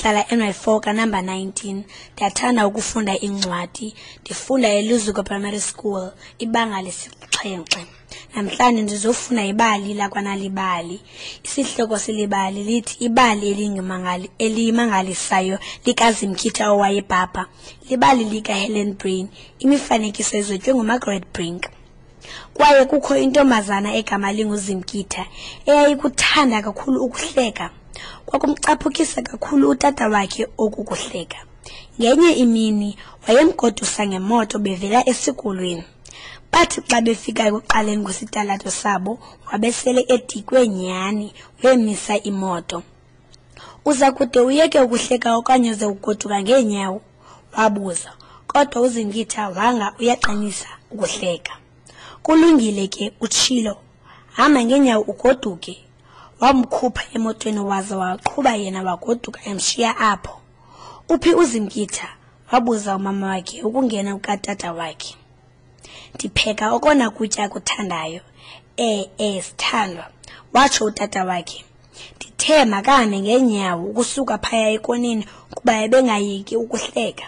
Ndihlala eNY4 kanamba 19. Ndiyathanda ukufunda iincwadi. Ndifunda eLuzuko Primary School, ibanga lesi-7. Namhlanje ndizofunda ibali lakwaNalibali. Isihloko selibali lithi Ibali elimangalisayo likaZimkhitha owayebhabha. Libali likaHelen Brain. Imifanekiso izotywe nguMargaret Brink. Kwaye kukho intombazana egama linguZimkitha eyayikuthanda kakhulu ukuhleka. Kwakumcaphukisa kakhulu utata wakhe oku kuhleka. Ngenye imini wayemgodusa ngemoto bevela esikolweni. Bathi xa befika ekuqaleni kwesitalato sabo wabesele edikwe nyhani wemisa imoto. Uza kude uyeke ukuhleka okanye uze ugoduka ngeenyawo? Wabuza. Kodwa uZingitha wanga uyaqinisa ukuhleka. Kulungile ke, utshilo. Hamba ngeenyawo ugoduke. Wamkhupha emotweni waza waqhuba yena wagoduka emshiya apho. Uphi uZimkitha? Wabuza umama wakhe ukungena kukatata wakhe. Ndipheka okona kutya akuthandayo. E-e, sithandwa, watsho utata wakhe. Ndithe makahambe ngeenyawo ukusuka phaya ekoneni kuba ebengayeki ukuhleka.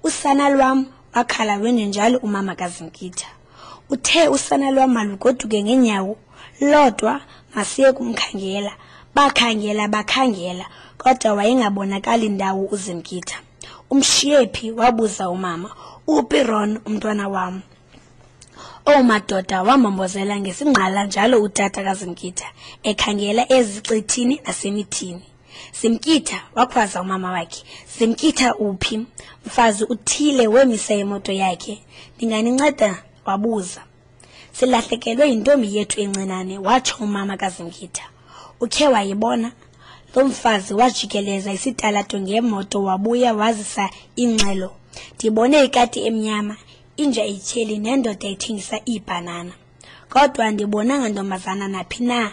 Usana lwam, wakhala wenjenjalo umama kaZimkitha. Uthe usana lwam malugoduke ngeenyawo lodwa, masiye kumkhangela. Bakhangela, bakhangela, kodwa wayengabonakali ndawo uZimkitha. Umshiye phi? Wabuza umama. Uphi Ron, umntwana wam? Owu madoda, wambombozela ngesingqala njalo utata kaZimkitha, ekhangela ezicithini nasemithini. Zimkitha, wakhwaza umama wakhe. Zimkitha uphi? Mfazi uthile wemisa imoto yakhe. Ndinganinceda? Wabuza. Silahlekelwe yintombi yethu encinane, watsho umama kaZimkitha. Ukhe wayibona? Lo mfazi wajikeleza isitalato ngemoto wabuya wazisa ingxelo. Ndibone ikati emnyama, inja etyheli nendoda ethengisa iibhanana. Kodwa andibonanga ntombazana naphi na.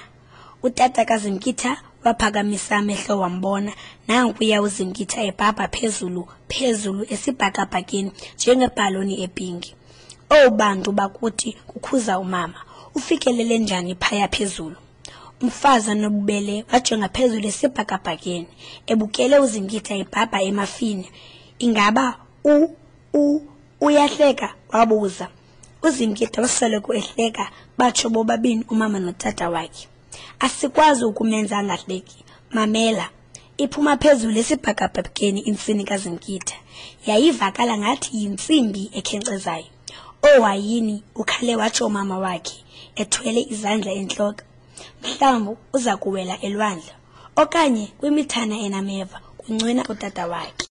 Utata kaZimkitha waphakamisa amehlo wambona nankuya uZimkitha ebhabha phezulu phezulu esibhakabhakeni njengebhaloni epinki. Owu bantu bakuthi, kukhuza umama, ufikelele njani phaya phezulu? Umfazi onobubele wajonga phezulu esibhakabhakeni, ebukele uZimkitha ebhabha emafini. Ingaba u u uyahleka? Wabuza. UZimkitha wasoloko ehleka, batsho bobabini umama notata wakhe. Asikwazi ukumenza angahleki. Mamela. Iphuma phezulu esibhakabhakeni intsini kaZimkitha. Yayivakala ngathi yintsimbi ekhenkcezayo. Owayini, ukhale watsho umama wakhe, ethwele izandla entloko. Mhlawumbi uza kuwela elwandle okanye kwimithana enameva, kuncwina utata wakhe.